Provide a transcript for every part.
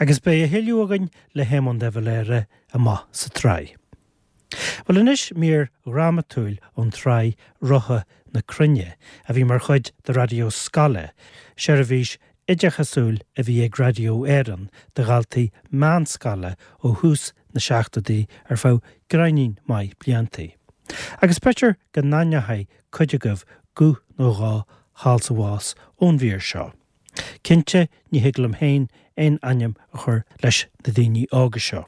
Agus beidh a thuilleadh againn le hÉamonn de Valera amach sa tsraith. Bhuel anois mír dhrámatúil ón tsraith Rotha na Cruinne a bhí mar chuid de Raidió Scoile, seirbhís oideachasúil a bhí ag Raidió Éireann do dhaltaí meánscoile ó thús na seachtóidí ar feadh gráinnín maith bliantaí. Agus b'fhéidir go n-aithneochaidh cuid agaibh guth nó dhó thall 's abhus ón mhír seo. Cinnte ní thig liom féin aon ainm a chur leis na daoine óga seo.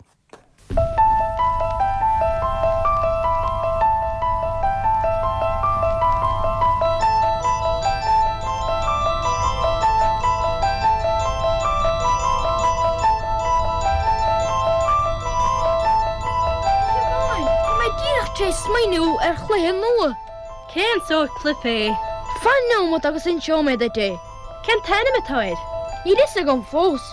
Siobhán, tá mé díreach tar éis smaoineamh ar chluiche nua. Cén sórt cluiche é? Fan nóimeat agus inseoidh mé duit é. Cén t-ainm atá air? Níl fhios agam fós.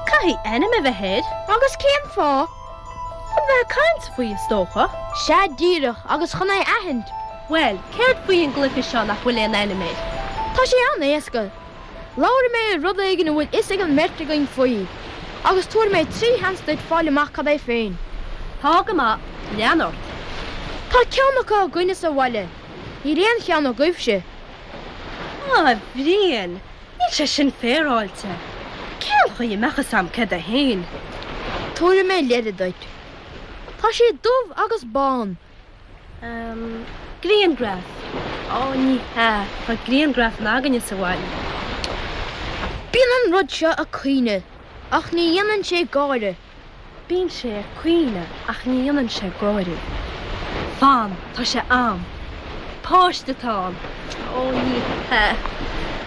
Caithfidh ainm a bheith air. Agus cén fáth? Chun bheith ag caint faoi, is dócha. Sea díreach, agus chun é aithint. Bhuel, céard faoi an gcluiche seo nach bhfuil aon ainm air? Tá sé an-éasca. Labharfaidh mé ar rud éigin a bhfuil fhios ag an mbeirt againn faoi, agus tabharfaidh mé 3 sheans duit fáil amach cad é féin. Tá go maith. Lean ort. Tá ceann acu againne sa bhaile. Níl aon cheann agaibhse. A Bhriain, níl sé sin féaráilte. Cén chaoi a mbeadh fhios a'm céard é féin? Tabharfaidh mé leide duit. Tá sé dubh agus bán. Ehm, grianghraf. Ó, ní hea, tá grianghrafanna againne sa bhaile. Bíonn an rud seo ag caoineadh ach ní dhéanann sé gáire. Bíonn sé ag caoineadh ach ní dhéanann sé gáire. Fan, tá sé a'm. Páiste atá ann. Ó, ní hea.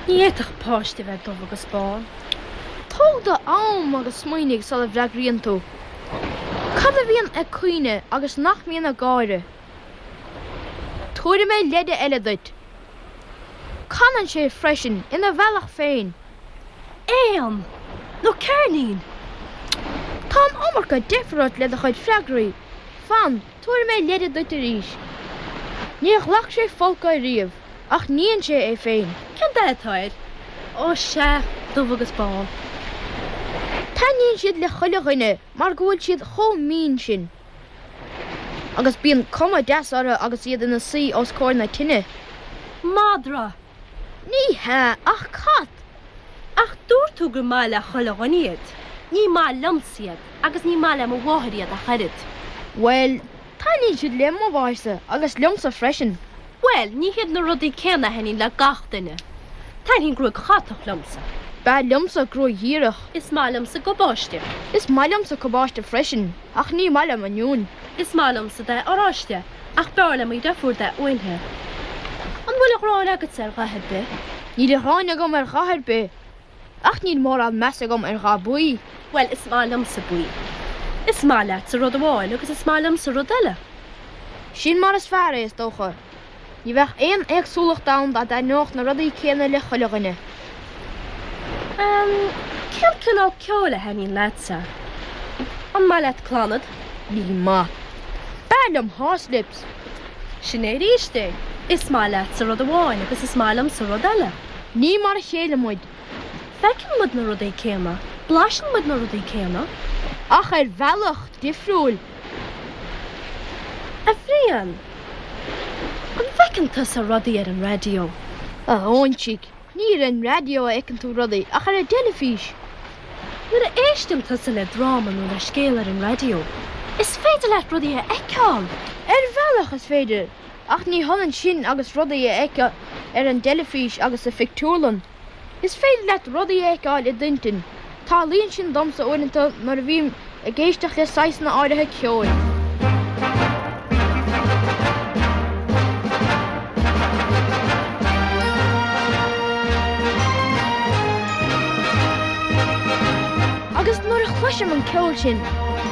Ní fhéadfadh páiste a bheith dubh agus bán. Tóg do am agus smaoinigh sula bhfreagraíonn tú. Cad a bhíonn ag caoineadh agus nach mbíonn ag gáire? Tabharfaidh mé leide eile duit. Canann sé freisin, ina bhealach féin. Éan! Nó ceirnín! Tá an iomarca deifir ort le do chuid freagraí. Fan, tabharfaidh mé leide duit arís. Níor ghlac sé folcadh ariamh, ach níonn sé é féin. Cén dath atá air? Ó sea, dubh agus bán. Taitníonn siad le chuile dhuine mar go bhfuil siad chomh mín sin. Agus bíonn cuma deas orthu agus iad ina suí os comhair na tine. Madra! Ní hea, ach cat! Ach dúirt tú gur maith le chuile dhuine iad. Ní maith liomsa iad, agus ní maith le mo mháthair iad ach oiread. Bhuel, taitníonn siad le mo mháthairsa agus liomsa freisin. Bhuel, ní hiad na rudaí céanna a thaitníonn le gach duine. Taitníonn gruaig chatach liomsa. B'fhearr liomsa gruaig dhíreach. Is maith liomsa gabáiste. Is maith liomsa cabáiste freisin, ach ní maith liom oinniúin. Is maith liomsa dath oráiste, ach b'fhearr le mo dheirfiúr dath uainthe. An bhfuil a ghráin agatsa ar dhath ar bith? Níl a ghráin agam ar dhath ar bith, ach níl mórán meas agam ar dhath buí. Bhuel, is maith liomsa buí. Is maith leatsa rud amháin agus is maith liomsa rud eile. Sin mar is fearr é, is dócha. Ní bheadh aon éagsúlacht ann dá dtaitneodh na rudaí céanna le chuile dhuine. Ehm, cén cineál ceoil a thaitníonn leatsa? An maith leat Clannad? Ní maith. B'fhearr liom Horslips. Sin é arís é. Is maith leatsa rud amháin agus is maith liomsa rud eile. Ní mar a chéile muid. Feiceann muid na rudaí céanna, blaiseann muid na rudaí céanna. Ach ar bhealach difriúil. A Bhriain, an bhfeiceann tusa rudaí ar an raidió? A óinsigh, ní ar an raidió a fheiceann tú rudaí, ach ar an dteilifís. Nuair a éisteann tusa le dráma nó le scéal ar an raidió, is féidir leat rudaí a fheiceáil! Ar bhealach is féidir, ach ní hionann sin agus rudaí a fheiceáil ar an dteilifís agus sa phictiúrlann. Is féidir leat rudaí a fheiceáil i d'intinn. Tarlaíonn sin domsa uaireanta nuair a bhím ag éisteacht le saghsanna áirithe ceoil. Agus nuair a chloisim an ceol sin,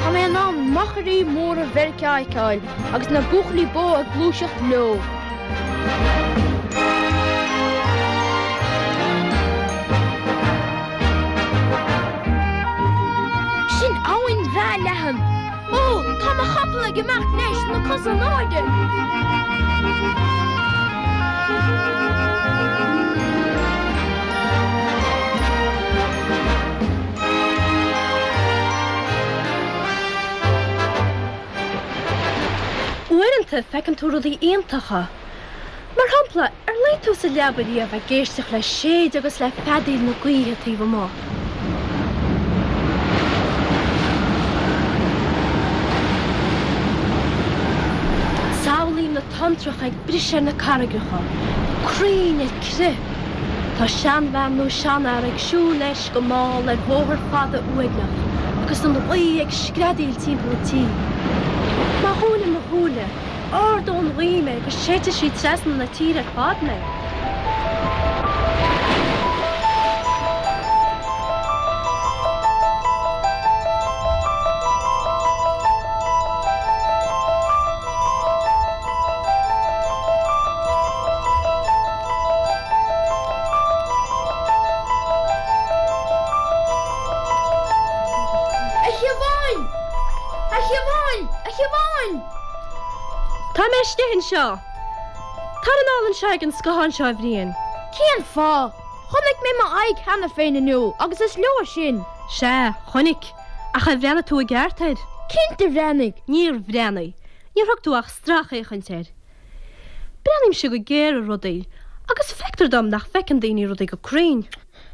tá mé in ann machairí móra Mheiriceá a fheiceáil agus na buachaillí bó ag gluaiseacht leo. Sin abhainn bhreá leathan. Ó, tá mo chapall ag imeacht leis, na cosa in airde! Uaireanta feiceann tú rudaí iontacha. Mar shampla, ar luigh tú sa leaba riamh ag éisteacht le séideadh agus le feadaíl na gaoithe taobh amuigh? Samhlaím na tonntracha ag briseadh ar na carraigreacha, crainn ar crith. Tá seanbhean nó seanfhear ag siúl leis go mall ar bhóthar fada uaigneach agus an ghaoth ag screadaíl timpeall an tí. Má dhúnaim mo shúile, ardóidh an ghaoth mé agus séidfidh sí trasna na tíre ar fad mé. A Shiobháin! A Shiobháin! A Shiobháin! Tá mé istigh anseo. Tar anall anseo ag an scáthán seo, a Bhriain. Cén fáth? Chonaic mé m'aghaidh cheana féin inniu agus is leor sin. Sea, chonaic. Ach ar bhreathnaigh tú i gceart air? Cinnte bhreathnaigh. Níor bhreathnaigh. Níor thug tú ach stracfhéachaint air. Breathnaímse go géar ar rudaí agus feictear dom nach bhfeiceann daoine rudaí go cruinn.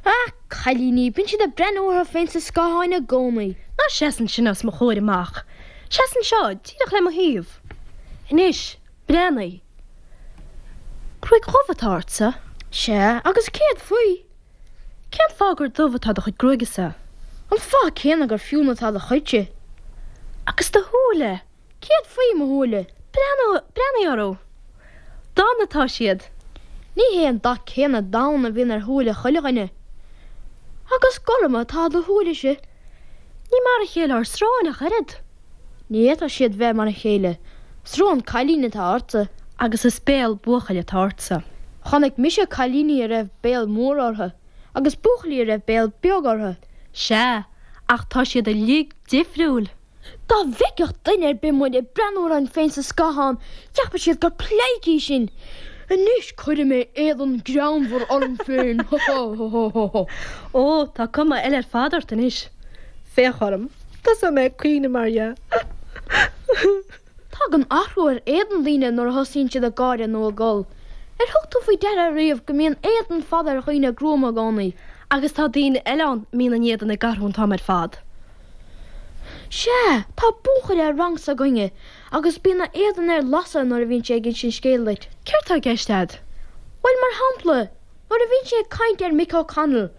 Ach cailíní, bíonn siad ag breathnú orthu féin sa scáthán i gcónaí. Ná seas ansin os mo chomhair amach. Seas anseo, díreach le mo thaobh. Anois, breathnaigh. Gruaig dhubh atá ortsa. Sea, agus céard faoi? Cén fáth gur dubh atá do chuid gruaige-sa? An fáth céanna gur fionn atá do chuidse. Agus do shúile? Céard faoi mo shúile? Breathnaigh, breathnaigh orthu. Donn atá siad. Ní hé an dath céanna donn a bhíonn ar shúile chuile dhuine. Agus gorm atá do shúilese. Ní mar a chéile ár sróin ach oiread. Ní fhéadfadh siad bheith mar a chéile. Srón cailín atá ortsa. Agus is béal buachaill atá ortsa. Chonaic mise cailíní a raibh béal mór orthu, agus buachaillí a raibh béal beag orthu. Sea, ach tá siad uilig difriúil. Dá bhfeicfeadh duine ar bith muid ag breathnú orainn féin sa scáthán, cheapfadh siad gur pleidhcí sinn. Anois cuirfidh mé éadan greannmhar orm féin, ha ha ha ha ha. Ó, tá cuma eile ar fad ort anois. Féach orm. Tosóidh mé ag caoineadh mar dhea. Tagann athrú ar éadan daoine nuair a thosaíonn siad ag gáire nó ag gol. Ar thug tú faoi deara riamh go mbíonn éadan fada ar dhaoine gruama i gcónaí? Agus tá daoine eile ann a mbíonn a n-éadan ag athrú an t-am ar fad. Sea, tá buachaill ar rang s'againne agus bíonn a éadan ar lasadh nuair a bhíonn sé ag insint scéil duit. Céard tá i gceist a'd? Bhuel, mar shampla, nuair a bhíonn sé ag caint ar Mick O'Connell.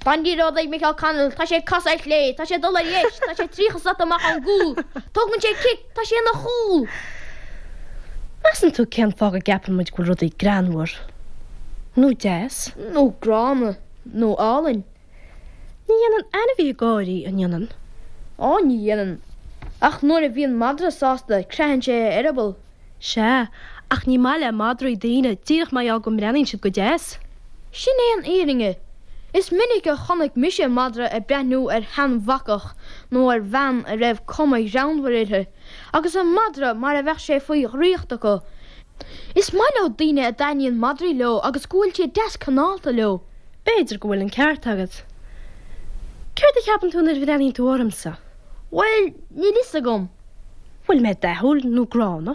Tá an liathróid ag Mick O'Connell, tá sé ag casadh ar chlé, tá sé ag dul ar dheis, tá sé 30 slat amach ón gcúl, tógann sé cic, tá sé ina chúl! Measann tú cén fáth go gceapann muid go bhfuil rudaí greannmhar? Nó deas? Nó gránna? Nó álainn? Ní dhéanann ainmhithe gáirí, an ndéanann? Ó, ní dhéanann. Ach nuair a bhíonn madra sásta, creathann sé a eireaball. Sea, ach ní maith le madraí daoine, díreach mar gheall go mbreathnaíonn siad go deas. Sin é an fhírinne. Is minic a chonaic mise madra ag breathnú ar sheanbhacach nó ar bhean a raibh cuma ghreannmhar uirthi, agus an madra mar a bheadh sé faoi dhraíocht acu. Is maith leo daoine a dtaitníonn madraí leo agus go bhfuil siad deas cineálta leo. B'fhéidir go bhfuil an ceart agat. Céard a cheapann tú nuair a bhreathnaíonn tú ormsa? Bhuel, níl fhios agam. Bhfuil mé dathúil nó gránna?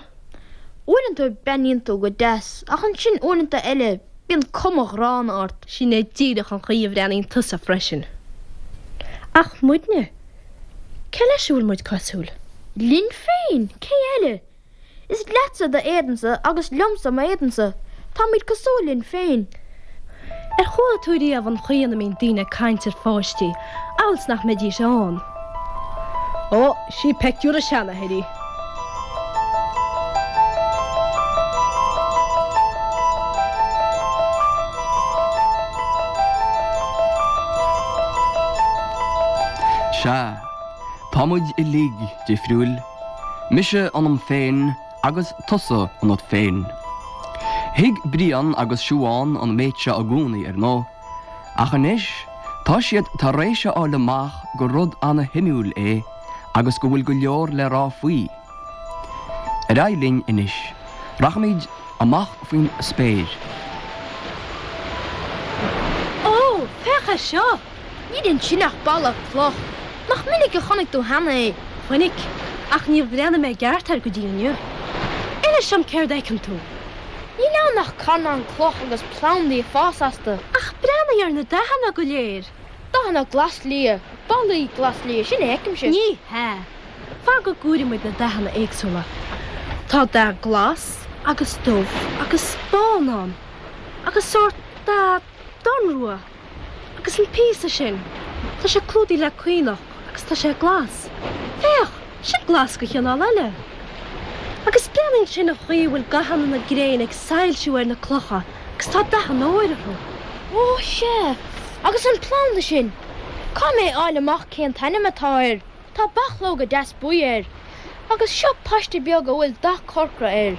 Uaireanta breathnaíonn tú go deas, ach ansin uaireanta eile bíonn cuma ghránna ort. Sin é díreach an chaoi a bhreathnaíonn tusa freisin. Ach muidne? Cé leis a bhfuil muid cosúil? Linn féin, cé eile? Is leatsa d'éadansa agus liomsa m'éadansa. Táimid cosúil linn féin. Ar chuala tú riamh an chaoi ina mbíonn daoine ag caint ar pháistí, amhail 's nach mbeidís ann? Ó, sí peictiúr a seanathair í. Sea, tá muid uilig difriúil. Mise ionam féin agus tusa ionat féin. Thuig Brian agus Siubhán an méid seo i gcónaí, ar ndóigh, ach anois tá siad tar éis a fháil amach gur rud ana-shuimiúil é agus go bhfuil go leor le rá faoi. Ar aghaidh linn anois. Rachaimid amach faoin spéir. Ó, féach air seo! Níl ansin ach balla cloch. Nach minic a chonaic tú cheana é? Chonaic, ach níor bhreathnaigh mé i gceart air go dtí inniu. Inis dom céard a fheiceann tú. Níl ann ach carnán cloch agus plandaí ag fás astu. Ach breathnaigh ar na dathanna go léir. Dathanna glas-liath, ballaí glas-liath, sin a fheicimse. Ní hea. Fan go gcomhairfidh muid na dathanna éagsúla. Tá dath glas agus dubh agus bán ann. Agus sórt dath donnrua. Agus an píosa sin, tá sé clúdaithe le caonach agus tá sé glas. Féach, sin glas de chineál eile. Agus breathnaigh ansin an chaoi a bhfuil gathanna na gréine ag soilsiú ar na clocha agus tá dath an óir orthu. Ó, sea, agus an planda sin! Caithfidh mé a fháil amach cén t-ainm atá air. Tá bachlóga deas buí air. Agus seo paiste beag a bhfuil dath corcra air.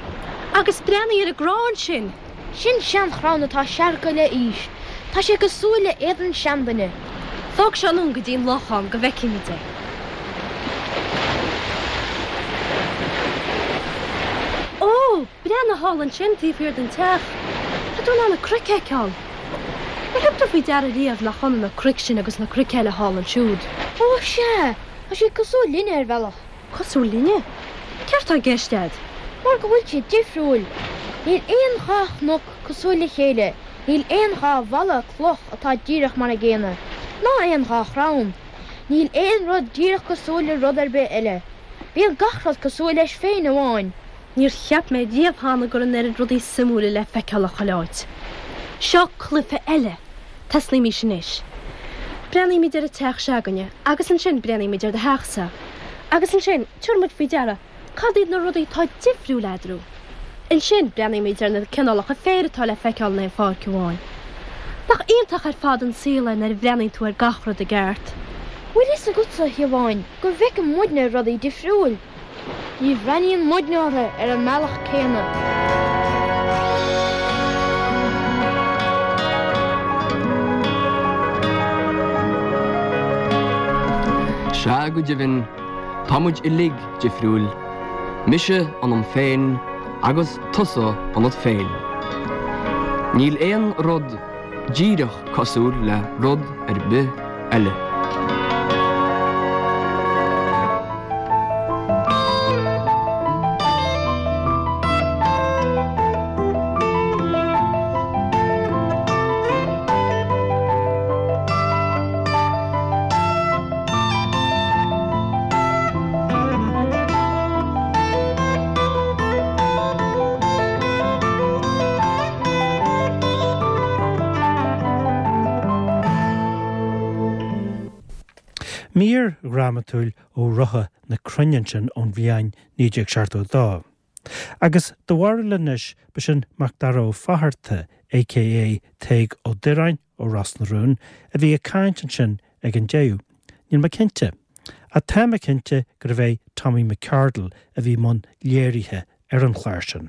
Agus breathnaigh ar an gcrann sin! Sin seanchrann atá seargtha le aois. Tá sé cosúil le éadan seanduine. Tóg seo anonn go dtí an lochán go bhfeicfimid é. Ó! Breathnaigh thall ansin taobh thiar den teach. Tá tú in ann na cnoic a fheiceáil. Ar thug tú faoi deara riamh nach ionann na cnoic sin agus na cnoic eile thall ansiúd? Ó, sea! Tá siad cosúil linne ar bhealach. Cosúil linne? Céard tá i gceist a'd? Mar go bhfuil siad difriúil. Níl aon dhá chnoc cosúil le chéile, níl aon dhá bhalla cloch atá díreach mar a gcéanna, ná aon dhá chrann. Níl aon rud díreach cosúil le rud ar bith eile. Bíonn gach rud cosúil leis féin amháin. Níor cheap mé riamh cheana go raibh an oiread rudaí suimiúla le feiceáil chuile áit. Seo cluiche eile! Tosnaímis anois. Breathnaímid ar an teach se'againne agus ansin breathnaímid ar do theachsa. Agus ansin tabharfaimid faoi deara cad iad na rudaí atá difriúil eadarthu. Ansin breathnaímid ar na cineálacha féir atá le feiceáil in aon pháirc amháin. Nach iontach ar fad an saol é nuair a bhreathnaíonn tú ar gach rud i gceart? Bhfuil fhios agatsa, a Shiobháin, go bhfeiceann muidne rudaí difriúil? Ní bhreathnaíonn muidne orthu ar an mbealach céanna. Sea, go deimhin, tá muid uilig difriúil, mise ionam féin agus tusa ionat féin. Níl aon rud díreach cosúil le rud ar bith eile. Mír dhrámatúil ó Rotha na Cruinne ansin ón bhliain 1972. Agus do bharúil anois, ba sin Macdara Ó Fatharta, aka Tadhg Ó Direáin ó Ros na Rún, a bhí ag caint ansin ag an deireadh. Níl mé cinnte. Ach tá mé cinnte gurbh é Tommy McCardle a bhí i mbun léirithe ar an chlár sin.